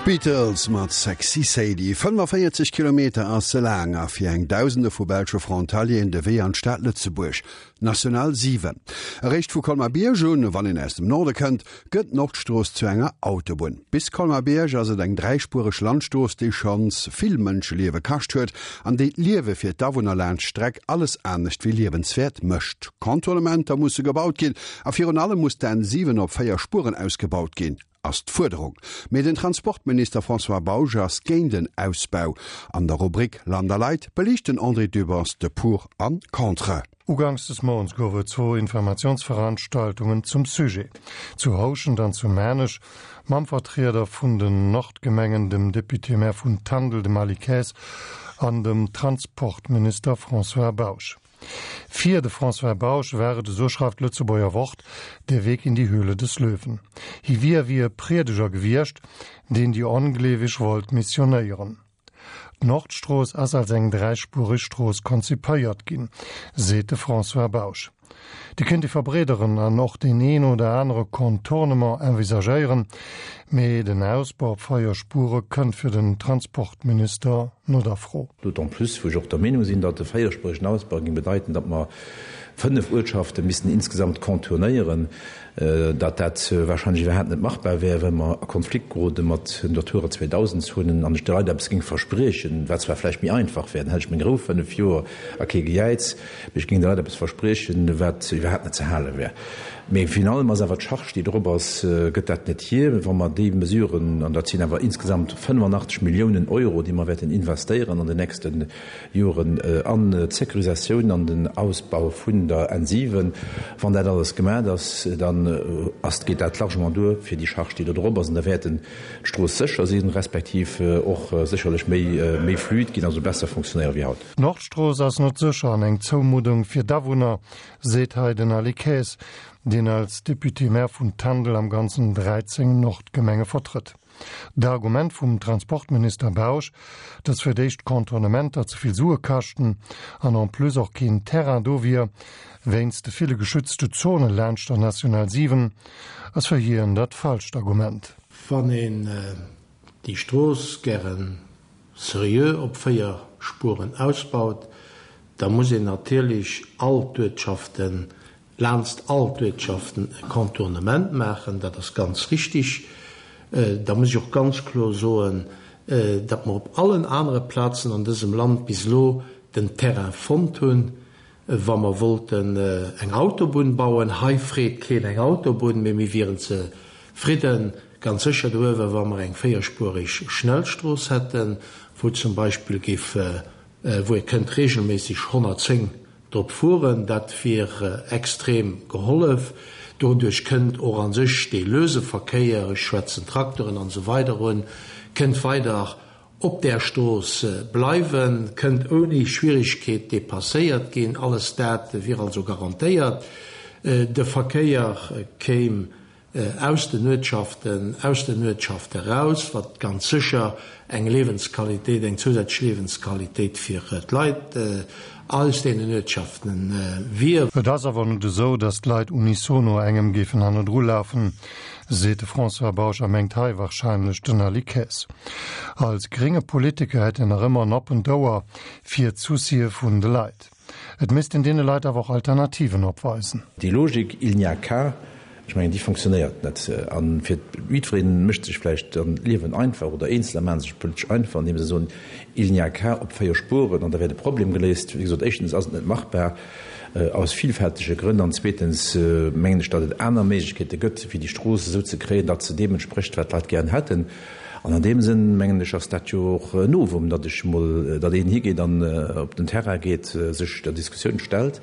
D'Beatles mat Sexy Sadie. 45 Kilometer ass se laang a fir eng Dausende vu belsche Frontalieren de Wee an d'Stad Lëtzebuerg. National 7. Eréischt vu Colmar-Bierg un, wann een aus dem Norde kënnt, gëtt d'Nordstrooss zu enger Autobunn. Bis Colmar-Bierg ass et eng dräispuereg Landstrooss, déi schonns vill Mënscheliewe kascht huet an déi d'Liewe fir d'Awunner laanscht d'Streck alles anescht wéi liewenswäert mécht. Contournementer musse gebaut ginn a virun allem muss d'N 7 op 4 Spueren ausgebaut ginn, ass d'Fuerderung. Mee den Transportminister François Bausch ass géint en Ausbau. An der Rubrik Land a Leit beliicht den André Dübbers de Pour an Contre. Uganks des Mounts gouf et zwou Informatiounsveranstaltungen zum Sujet, zu Houschent an zu Maarnech, mam Vertrieder vun den Nordgemengen, dem Député-Maire vun Tandel, dem Aly Kaes, an dem Transportminister François Bausch. Fir de François Bausch war et, esou schreift d'Lëtzebuerger Wort, der Weg in die Höhle des Löwen. Hie wier wéi e Priedeger gewiescht, deen déi Ongleeweg wollt missionéieren. D'Nordstrooss ass als eng dräispuereg Strooss konzipéiert ginn, seet de François Bausch. Déi kéint ee verbreederen an och deen een oder anere Contournement envisagéieren, mee den Ausbau op 4 Spuere kënnt fir den Transportminister no der Fro. D'autant plus wou ech och der Meenung sinn, datt e véierspueregen Ausbau géing bedeiten, datt mer 5 Uertschafte missten insgesamt contournéieren, datt dat wahrscheinlech iwwerhaapt net machbar wär, well mer a Konflikt gerode mat Natura 2000 Zonen an ech de Leit eppes géing verspriechen, wat zwar vläicht méi einfach wär, dann hätt ech meng Rou 5 Joer a kee Gejäiz, mee ech géing de Leit eppes verspriechen, wat iwwerhaapt net ze hale wär. Mee virun allem ass awer d'Charge, déi drop ass, gëtt dat net hier, wa mer déi Mesuren, an dat sinn awer insgesamt 85 Milliounen Euro, déi mer wäerten investéieren an den nächste Joren an d'Sécurisatioun an den Ausbau vun der N7, wann dat alles gemat ass, dann ass, geet dat largement duer fir déi Charge, déi do drop ass. An da wäerten d'Strooss sécher sinn, respektiv och sécherlech méi, méi fluid ginn, also besser fonctionnéiere wéi haut. D'Nordstrooss ass net sécher an eng Zoumuddung fir d'Awunner, seet hei den Aly Kaes, deen als Député-Maire vun Tandel am Ganzen 13 Nordgemenge vertrëtt. D'Argument vum Transportminister Bausch, datt fir d'éischt d'Contournementer ze vill Sue kaschten an en plus och keen Terrain do wier, wéinst de ville geschützte Zone laanscht der National 7, ass fir hien dat falscht Argument. Wann een déi Strooss gären seriö op 4 Spueren ausbaut, da muss een natierlech all d'Uertschaften, laanst all d'Uertschaften e Contournement maachen. Dat ass ganz richtig. Da muss ech och ganz kloer soen, datt mer op allen anere Plazen an dësem Land bis elo den Terrain fonnt hunn, wa mer wollten eng Autobunn bauen. Hei freet keen eng Autobunn, mee mir wieren zefridden, ganz sécher doruewer, wa mer eng véierspuerig Schnellstrooss hätten, wou zum Beispill géif, wou ee kënnt regelméisseg 110 drop fueren. Dat wier extrem gehollef. Doduerch kënnt och a sech dee löse Verkéier, ech schwätzen Trakteren an esou weider un, kënnt weider op där Strooss bleiwen, kënnt ouni Schwierigkeet dépasséiert ginn. Alles dat wier also garantéiert. De Verkéier kéim aus den Uertschaften, aus den Uertschafte raus, wat ganz sécher eng Liewensqualitéit, eng zousätzlech Liewensqualitéit fir d'Leit aus deenen Uertschaften wier. Et ass awer net esou, datt d'Leit unisono engem géifen hannendru lafen, seet de François Bausch a mengt hei warscheinlech den Aly Kaes. Als grénge Politiker hätt en nach ëmmer en oppent Ouer fir d'Soucië vun de Leit. Et misst een deene Leit awer och Alternativen opweisen. Déi Logik il n'y a qu'à, ech mengen, déi fonctionnéiert net. A fir jiddweree mécht sech vläicht dann d'Liewen einfach oder Eenzeler maache sech politesch einfach, andeem se soen, il n'y a qu'à op 4 Spuren an da wär de Problem geléist. Wéi gesot, éischtens ass et net machbar aus vielfältege Grënn an zweetens mengen ech, datt et aner Méiglechkeete gëtt, fir déi Strooss esou ze kréien, datt se deem entsprécht, wat d'Leit gären hätten. An an deem Sënn, mengen ech, ass dat jo och en Novum, datt ech emol, datt een higeet an op den Terrain geet, sech der Diskussioun stellt.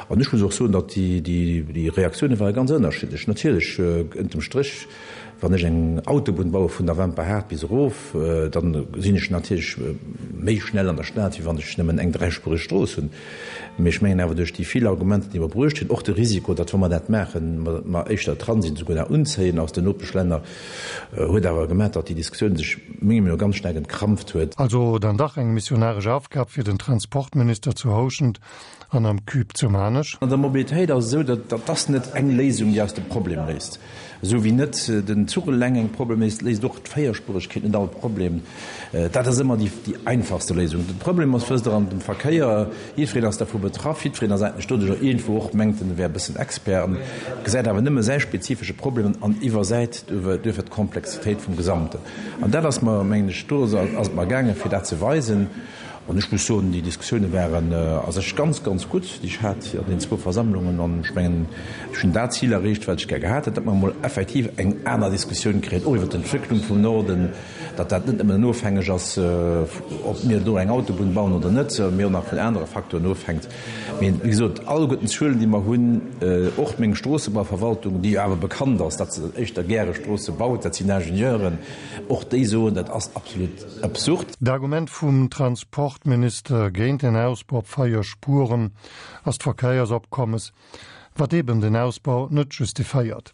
An ech muss och soen, datt déi, déi Reaktioune ware ganz ënnerschiddlech. Natierlech, ënnertem Stréch, wann ech eng Autobunn baue vun der Wemperhaart bis erof, da sinn ech natierlech méi schnell an der Stad, wéi wann ech nëmmen eng dräispuereg Strooss hunn. Mee ech mengen awer, duerch déi vill Argumenter, déi mer bruecht hunn, och de Risiko, datt wa mer dat maachen, mer éischter Transit esouguer nach unzéien aus den Nopeschlänner, Huet awer gemat, datt déi Diskussioun sech mengem no ganz staark entkrampft huet. Also dann dach eng missionaresch Aufgab fir den Transportminister zu Houschent an am Cube zu Maarnech? An der Mobilitéit ass et esou, datt dat ass net eng Léisung, déi eis de Problem léist. Esou wéi net den Zuch eleng eng Problem léist, léist och d'Véierspuregkeet net all Problem. Dat ass ëmmer déi einfachste Léisung. De Problem ass, wësst Der, an dem Verkéier, jiddwereen ass dervu betraff, jiddwereen ass eigentlech doduercher iergendwou och, mengt en, e wär e bëssen Expert an gesäit awer nëmme säi spezifesche Problem an iwwersäit duerfir d'Komplexitéit vum Gesamten. An dat ass mer, mengen ech, do ass et mer gaangen, fir dat ze weisen. An ech muss soen, déi Diskussioune waren a sech ganz, ganz gutt, déi ech hat an deenen zwou Versammlungen. An ech mengen, ech hunn dat Zil erreecht, wat ech gär gehat hätt, datt mer emol effektiv eng aner Diskussioun kréien, och iwwer d'Entwécklung vum Norden, datt dat net nëmmen ofhängeg ass, ob mir do eng Autobunn bauen oder net, mee och nach vun anere Facteuren ofhänkt. Mee wéi gesot, alleguerten d'Zuelen, déi mer hunn, och meng Stroossebauverwaltung, déi jo awer bekannt ass, datt se éischter gäre Stroosse baut, dat sinn Ingenieuren, och déi soen, dat ass absolut absurd. D'Argument vum Transportminister géint en Ausbau op 4 Spuren ass d'Verkéiersopkommes, wat eben den Ausbau net justiféiert.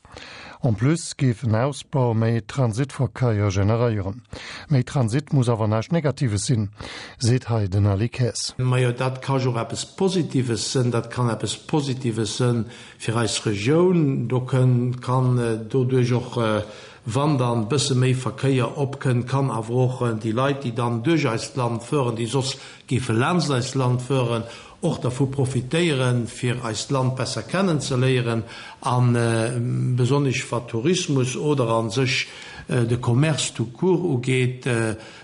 En plus géif en Ausbau méi Transitverkéier generéieren. Méi Transit muss awer näischt Negatives sinn, seet hei den Ali Kaes. Majo, dat ka jo och eppes Positives sënn. Dat kann eppes Positives sënn fir eis Regioun. Do kënn, kann doduerch och Wann dann bësse méi Verkéier opkënnt, kann awer och déi Leit, déi dann duerch eist Land fueren, déi soss géife laanscht eist Land fueren, och dervu profitéieren, fir eist Land besser kennen ze léieren a besonnesch wat Tourismus oder a sech de Commerce tout court ugeet,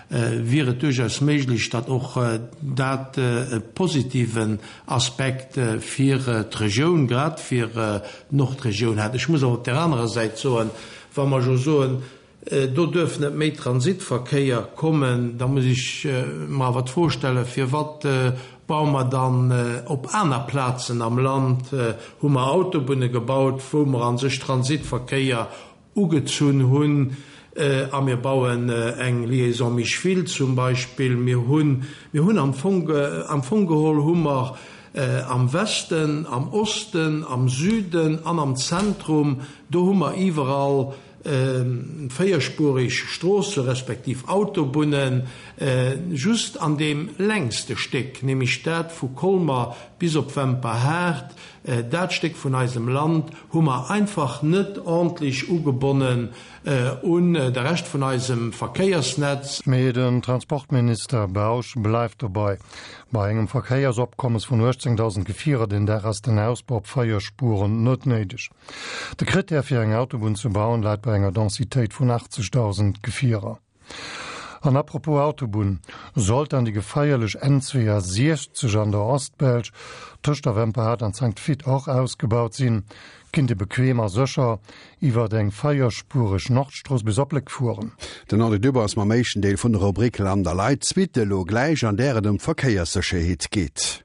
wier et duerchaus méiglech, datt och dat e positiven Aspekt fir d'Regioun, grad fir d'Nordregioun hätt. Ech muss awer op där anerer Säit soen, wa mer jo soen, do duerf net méi Transitverkéier kommen, da muss ech mer awer d'Fro stellen, Firwat baue mer dann op aner Plazen am Land, hu mer Autobunne gebaut, wou mer a sech Transitverkéier ugezunn hunn, a mir bauen eng Liaison Micheville zum Beispill. Mir hunn, mir hunn am Fong, am Fong geholl hu mer am Westen, am Osten, am Süden an am Zentrum, do hu mer iwwerall véierspurig Stroosse respektiv Autobunnen. Just an deem längste Stéck, nämlech dat vu Colmer bis op Wemperhaart, Dat Stéck vun eisem Land hu mer einfach net ordentlech ugebonnen un de Rescht vun eisem Verkéiersnetz. Mee den Transportminister Bausch bleift dobei, Bei engem Verkéiersopkommes vun 18.000 Gefierer den Dag ass den Ausbau op 4 Spuren net néideg. De Krittär fir eng Autobunn ze bauen läit bei enger Densitéit vun 80.000 Gefierer. An apropos Autobunn, sollt dann déi gefeierlech N62 an der Ostbelsch tëscht der Wemperhaart an Sankt Vith och ausgebaut sinn, kinnt ee bequem a sécher iwwert eng véierspuereg Nordstrooss bis op Léck fueren. Den André Dübbers ass mam éischten Deel vun der Rubrik Land a Leit, d'Suite elo gläich, an där et ëm d'Verkéierssécherheet geet.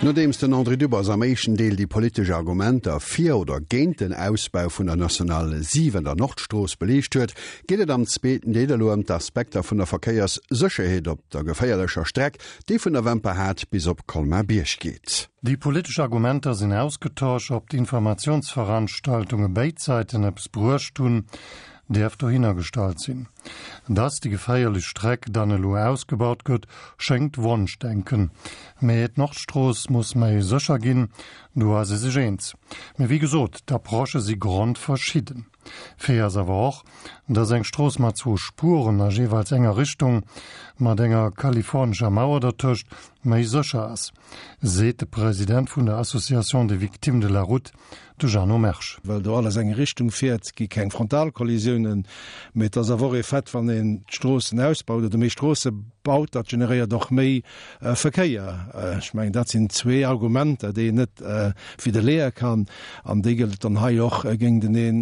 Nodeems den André Dübbers am éischten Deel déi politesch Argumenter fir oder géint den Ausbau vun der Nationale 7, der Nordstrooss, beliicht huet, geet et am zweeten Deel elo ëm d'Aspekter vun der Verkéierssécherheet op der geféierlecher Streck, déi vun der Wemperhaart bis op Colmar-Bierg geet. Déi politesch Argumenter sinn ausgetosch. Ob d'Informatiounsveranstaltunge béid Säiten eppes bruecht hunn, däerf dohinner gestallt sinn. Dass déi geféierlech Streck dann elo ausgebaut gëtt, schéngt Wonschdenken. Mee d'Nordstrooss muss méi sécher ginn, do ass ee sech eens. Mee wéi gesot, d'Approchë si grondverschidden. Fait ass awer och, dass eng Strooss mat zwou Spuren a jeeweils enger Richtung, mat enger kalifornescher Mauer dertëscht, méi sécher ass, seet de President vun der Association des victimes de la route, De Jeannot Mersch. Well do alles eng Richtung fiert, gi keng Frontalkollisiounen. Mee et ass awer och ee Fait, wann een d'Stroossen ausbaut oder méi Stroosse baut, dat generéiert och méi Verkéier. Ech mengen, dat sinn zwee Argumenter, déi een net widderleeë kann. An déi gëllt et dann hei och géinteneen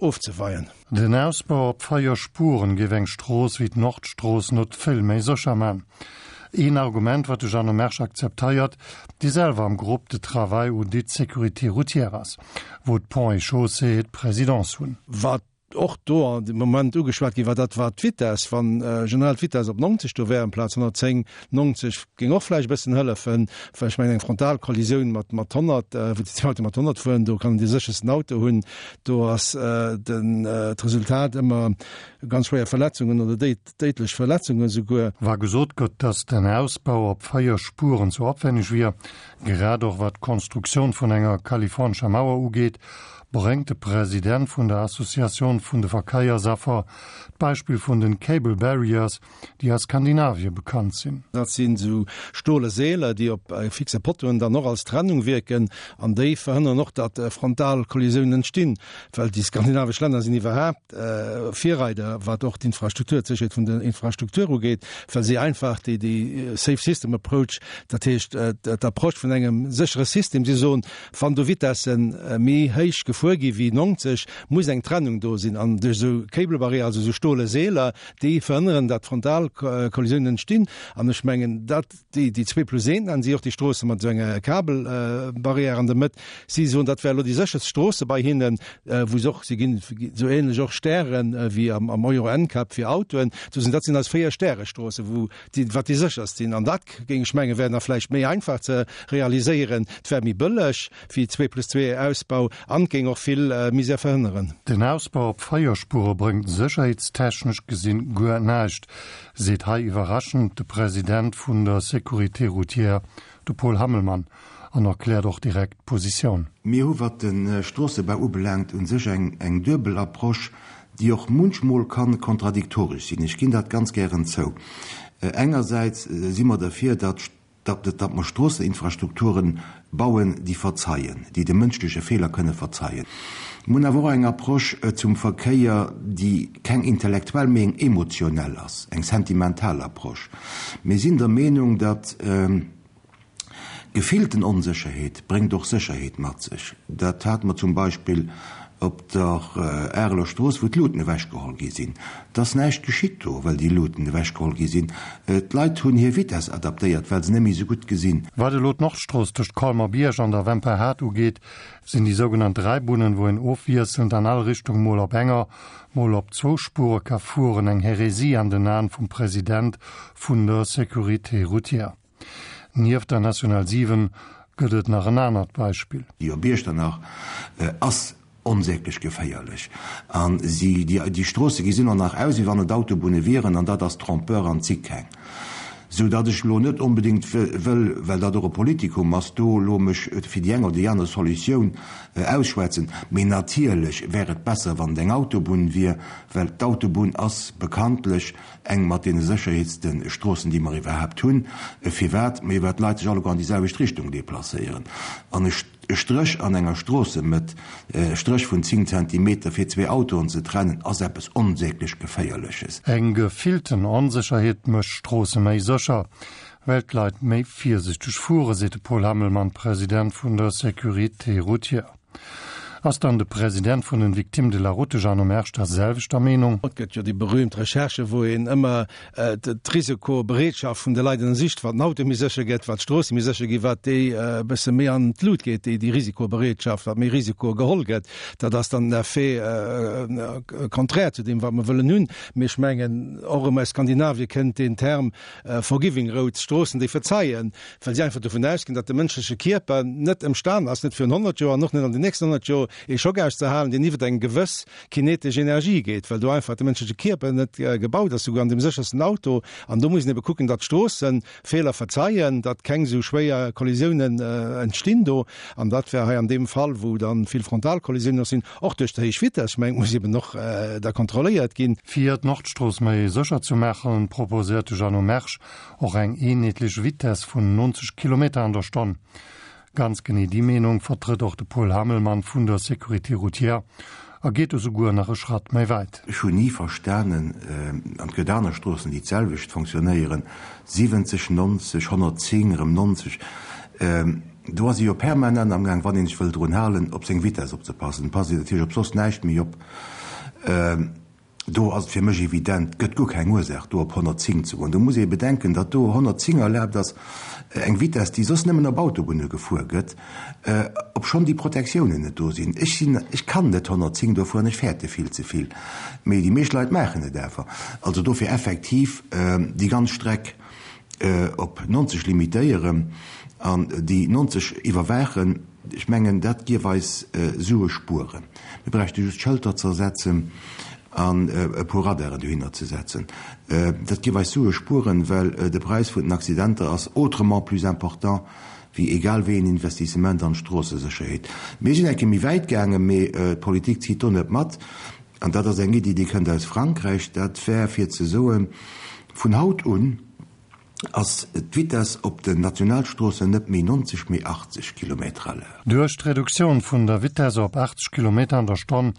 ofzeweien. Den Ausbau op 4 Spuren géif eng Strooss wéi d'Nordstrooss not vill méi sécher man. Een Argument, wat de Jeannot Mersch akzepteiert, dee selwer am Groupe de travail ou dit sécurité routière ass, wou d'Ponts et Chaussées d'Présidence hunn. Wat och do an de Moment ugeschwat gi war, dat war d'Vitess. Wann generell d'Vitess op 90 do wär amplaz 110, 90 géing och vläicht e bëssen hëllefen, well ech mengen eng Frontalkollisioun mat mat 100, wou déi zwee Autoe mat 100 fueren, do kann een dee séchersten Auto hunn, do ass den d'Resultat ëmmer ganz schwéier Verletzungen oder déidlech Verletzungen esouguer. Wa gesot gëtt, datt den Ausbau op 4 Spuren ze opwenneg wier, grad och wat d'Konstruktioun vun enger kalifornescher Mauer ugeet, bréngt de President vun der Associatioun vun de Verkéiersaffer d'Beispill vun den Cable Barriers, déi a Skandinavie bekannt sinn. Dat sinn esou stole Seeler, déi op fixe Pottoen dann och als Trennung wierken an déi verhënneren och, datt Frontalkollisiounen entstinn, well déi skandinavesch Länner sinn iwwerhaapt Virreider, wat och d'Infrastruktur, d'Sécherheet vun der Infrastruktur ugeet, well si einfach déi déi Safe System Approach, dat heescht d'Approche vun engem séchere System, si soen, wann do Vitesse méi héich gefuer gi wéi 90, muss eng Trennung do sinn an duerch esou Cable Barrières, also esou stole Seeler, Déi verhënneren, datt Frontalkollisiounen entstinn. An ech mengen, dat, déi, déi zwee plus een, nennen si och déi Stroosse mat esou enger Kabelbarrière an der Mëtt. Si soen, dat wär elo déi sécherst Stroosse bei hinnen, wou se och, si ginn esou ähnlech och Stären wéi am, am Euro NCAP fir Autoen. Sou sinn, dat sinn eis Véier-Stäre-Stroosse, wou déi, wat déi sécherst sinn. An dat, géing ech mengen, wär nach vläicht méi einfach ze realiséieren. Et wär méi bëlleg wéi zwee plus zwee Ausbau an géing och vill Misär verhënneren. Den Ausbau op 4 Spuere bréngt sécherheetstechnesch gesinn guer näischt, seet hei iwwerraschend de President vun der Sécurité routière, de Paul Hammelmann, an erkläert och direkt d'Positioun. Mir hu wat de Stroossebau ubelaangt u sech eng duebel Approche, déi och munchmol ka kontradiktoresch sinn. Ech ginn dat ganz gären zou. Engersäits si mer derfir, datt datt mer Stroosseninfrastrukturen bauen, déi verzeien, déi de mënschleche Feeler kënne verzeien. Mir hunn awer och eng Approche zum Verkéier, déi keng intellektuell, mee eng emotionell ass, eng sentimental Approche. Mir sinn der Meenung, datt gefillten Onsécherheet bréngt och Sécherheet mat sech. Dat hate mer zum Beispill op der Areler Strooss, wou d'Luuten ewechgeholl gi sinn. Et ass näischt geschitt do, well déi Luuten ewechgeholl gi sinn. D'Leit hunn hir Vitess adaptéiert, well se net méi esou gutt gesinn. Wat elo d'Nordstrooss tëscht Colmer-Bierg an der Wemperhaart ugeet, sinn déi sougenannt Dräibunnen, wou een ofwiesselnd an all Richtung mol op enger, mol op zwou Spuere ka fueren, eng Hérésie an den Aen vum President vun der Sécurité routière. Nieft der National 7 gëtt et nach en anert Beispill. Déi op Iechternach ass onsäglech geféierlech an si, déi Stroosse gesinn och nach aus, wéi wann et Autobunne wieren, an dat ass trompeur an si keng. Sou datt ech elo net onbedéngt wëll, well dat och e Politikum ass, do elo mech fir déi eng oder déi aner Solutioun ausschwätzen. Mee natierlech wär et besser, wann et eng Autobunn wier, well d'Autobunn ass bekanntlech Eng mat deene sécherheetste Stroossen, déi mer iwwerhaapt hunn. Firwat? Mee well d'Leit sech alleguer an déi selwecht Richtung deplacéieren. An e Stréch an enger Stroossemëtt, e Stréch vun 10 Zentimeter, fir zwee Autoen ze trennen, ass eppes onsäglech Geféierleches. Eng gefillten Onsécherheet mécht Stroosse méi sécher, well d'Leit méi virsichteg fueren, seet de Paul Hammelmann, President vun der Sécurité routière. Ass dann de President vun den Victimes de la Route, de Jeannot Mersch, der selwechter Meenung? Et gëtt jo déi berühmt Recherche, wou een ëmmer d'Risikobereetschaft vun de Leit ënnersicht, wat den Auto méi sécher gëtt, wat d'Stroosse méi sécher ginn, wat déi e bësse méi an d'Lut geet, déi Risikobereetschaft, wat méi Risiko geholl gëtt. Dat ass dann den Effet contraire zu deem, wat mer wëllen hunn. Mee ech mengen, och erëm aus Skandinavie kënnt deen Term forgiving roads, Stroossen, déi verzeien, well si einfach dovun ausginn, datt de mënschleche Kierper net ëmstan ass, net virun 100 Joer an och net an den nächsten 100 Joer, ee Schock auszehalen, deen iwwer eng gewëss kinetesch Energie geet, well do einfach de mënschleche Kierper net gebaut ass, souguer an deem séchersten Auto. An do muss een ebe kucken, datt d'Stroosse Feeler verzeien, datt keng esou schwéier Kollisiounen entstinn do. An dat wär hei an deem Fall, wou da vill Frontalkollisiounen och sinn, och duerch déi héich Vitess, ech mengen, et muss eben och da kontrolléiert ginn. Fir d'Nordstrooss méi sécher ze maachen, proposéiert de Jeannot Mersch och eng eenheetlech Vitess vun 90 Kilometer an der Stonn. Ganz genee déi Meenung vertrëtt och de Paul Hammelmann vun der Sécurité routière a geet esouguer nach e Schratt méi wäit. Ech hunn ni verstanen, an et gëtt aner Stroossen, déi d'selwecht fonctionnéieren, 70, 90, 110, erëm 90, do ass ee jo permanent amgaang, wann ee sech wëll drun halen, op seng Vitess opzepassen. Passt een natierlech op soss näischt méi op. Do ass et fir mech evident, et gëtt guer keng Ursaach, do op 110 ze goen. Do muss ee bedenken, datt do 110 erlaabt ass, eng Vitess, déi soss nëmmen op Autobunne gefuer gëtt, obschonn déi Protektiounen net do sinn. Ech sinn, ech kann net 110 do fueren, ech fäerte vill ze vill. Mee déi meescht Leit maachen et awer. Also dofir effektiv déi ganz Streck op 90 limitéieren an déi 90 iwwerwaachen. Ech mengen, dat géif eis Sue spueren. Mir bräichte just Schëlter ze ersetzen an e puer Radaren dohinner ze setzen. Dat géif eis Sue spueren, well de Präis vun den Accidenter ass autrement plus important wéi egal wéi een Investissement an d'Stroossesécherheet. Mir sinn eng Kéier méi wäit gaangen, mee d'Politik zitt do net mat. An dat ass eng Iddi, déi kënnt aus Frankräich. Dat wär fir ze soen, vun haut un, ass d'Vitess op den Nationalstroossen net méi 90, mee 80 Kilometer à l'heure. Duerch d'Reduktioun vun der Vitesse op 80 Kilometer an der Stonn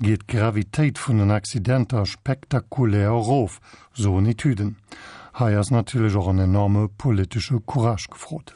geet d'Gravitéit vun den Accidenter spektakulär erof, soen Etüden. Hei ass natierlech och en enorme politesche Courage gefrot.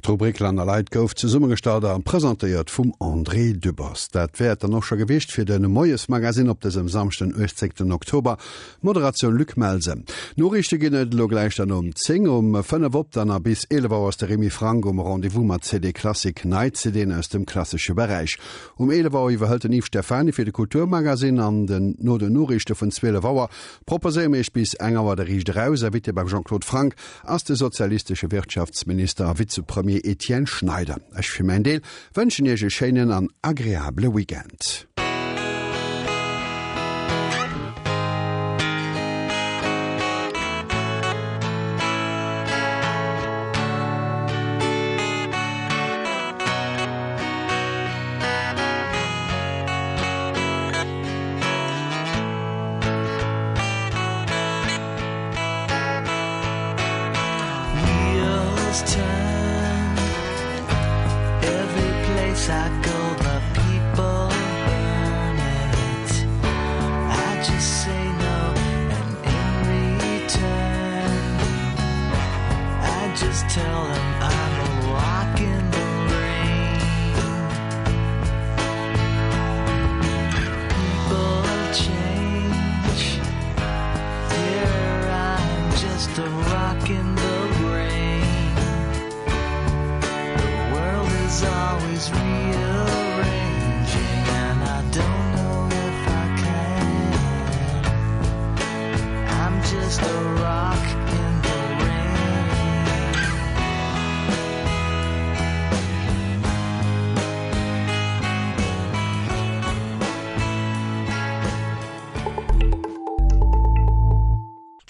D'Rubrik Land a Leit gouf zesummegestallt a presentéiert vum André Dübbers. Dat wär et dann och scho gewiescht fir de Moiesmagazine op dësem Samschden 18 Oktober. Moderatioun Luc Melsen. Noriichte ginn et elo gläich dann um 10, um 5 op dann a bis 11 Auer ass de Remy Franck um Rendez-vous mat CD Classic, nei CDen aus dem klassesche Beräich. Um 11 Auer iwwerhëlt den Yves Stephany fir de Kulturmagazine an den no den Noriichte vun 12 Auer proposéiere mir iech bis eng Auer de Riicht eraus. Invité beim Jean-Claude Franck ass de sozialistesche Wirtschaftsminister a Vizepremier Etienne Schneider. Ech fir mäin Deel wënschen iech e schéinen an agreabele Weekend.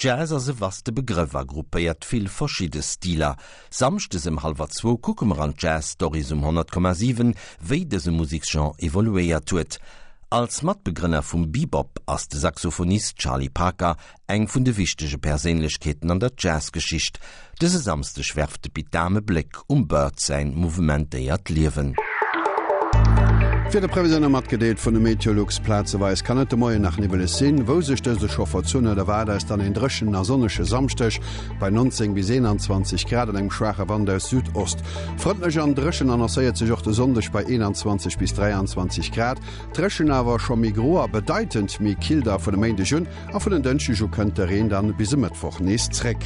Jazz ass e vaste Begrëff a gruppéiert vill verschidde Stiler. Samschdes ëm hallwer zwou kucke mer an d'Jazz Stories um 100,7, wéi dëse Museksgenre evoluéiert huet. Als Matbegrënner vum Bebop ass de Saxophonist Charlie Parker Eng vun de wichtege Perséinlechkeeten an der Jazzgeschicht. Dëse Samsdeg werft de Pit Dahm e Bléck um Bird säin mouvementéiert Liewen. D'Wiederprevisioune matgedeelt vun de Meteolux, Plazeweis kann et de Moien nach niwweleg sinn. Wou sech dëse scho verzunn huet, erwaart eis dann een dréchenen a sonnege Samschdeg bei 19 bis 21 Grad an engem schwaache Wand aus Südost. Frëndlech an dréchen annoncéiert sech och de Sonndeg bei 21 bis 23 Grad. Dréchen awer scho méi gro a bedeitend méi kill da vun e Méindeg un. A vun en Dënschdeg u kënnt de Reen dann bis e Mëttwoch nees zréck.